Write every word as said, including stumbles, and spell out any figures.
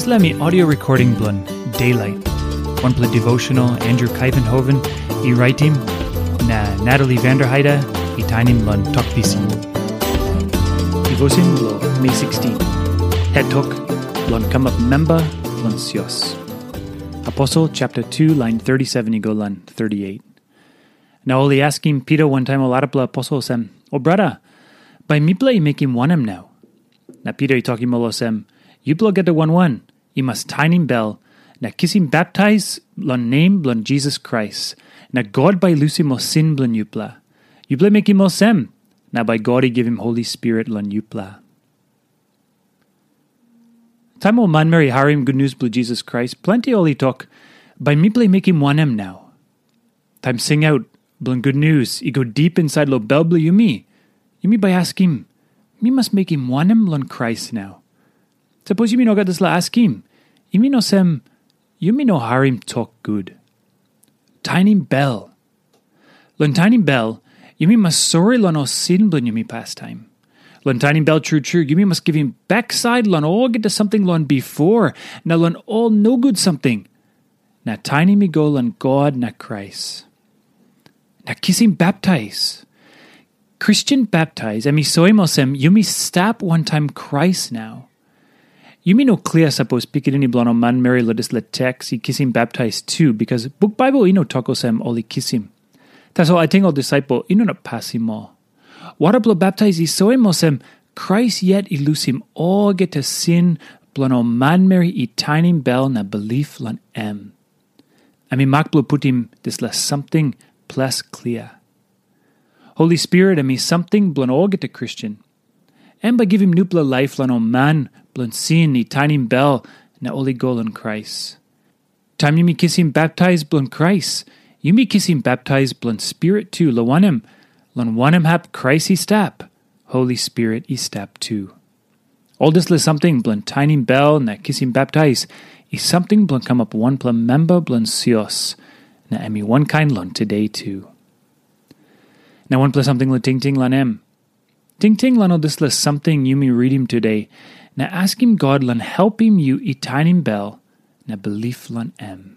Dispela mi audio recording bilong Daylight, wanpela devotional Andrew Kaivenhoven i raitim, na Natalie Vanderheide i tainim long Tok Pisin. Devotion bilong Mei sixteen. Het tok, long kamap memba long sios. Aposel chapter two, line thirty-seven i go long thirty-eight. Na ol i askim Pita wantaim ol arapela aposel olsem, "O brata, bai mipela i mekim wanem nau?" Na Pita i tokim ol olsem, "Yupela olgeta wan wan i mas tainim bel na kisim baptais long nem bilong Jisas Krais, na God bai i lusim ol sin bilong yupela. Yupela mekim olsem, na bai God i givim Holi Spirit long yupela." Taim ol manmeri i harim gutnius bilong Jisas Krais, planti ol i tok, "Bai mipela i mekim wanem nau?" Taim singaut bilong gutnius i go dip insait long bel bilong yumi, yumi bai askim, "Mi mas mekim wanem long Krais nau?" Sapos yumi no gat dispela askim, yumi no sem, yumi no harim tok gut. Tainim bel. Long tainim bel, yumi mas sori long ol sin bilong yumi pastaim. Long tainim bel tru tru, yumi mas givim baksait long olgeta samting long bipo, na long ol nogut samting. Na tainim i go long God na Krais. Na kisim baptais. Kristen baptais em i soim olsem yumi stap wantaim Krais nau. Yumi no klia sapos pikinini bilong ol manmeri long dispela teks i kisim baptais tu, bikas buk Baibel i no tok olsem ol i kisim. Tasol ating ol disaipel i no inap pasim ol. Wara bilong baptais i soim olsem Krais yet i lusim olgeta sin bilong ol manmeri i tainim bel na bilip long em. Em i mak bilong putim dispela samting ples klia. Holi Spirit em i samting bilong olgeta Kristen. Em bai givim nupela laip long ol man bilong sin i tainim bel na ol i go long Krais. Taim yumi kisim baptais bilong Krais, yumi kisim baptais bilong Spirit tu, long wanem, long wanem hap Krais i stap, Holi Spirit i stap tu. Ol dispela samting bilong tainim bel na kisim baptais i samting bilong kamap wanpela memba bilong sios, na em i wankain long today tu. Na wanpela samting long tingting long em. Tingting long ol dispela samting yumi ritim today, na askim God long helpim yu i tainim bel na bilip long em.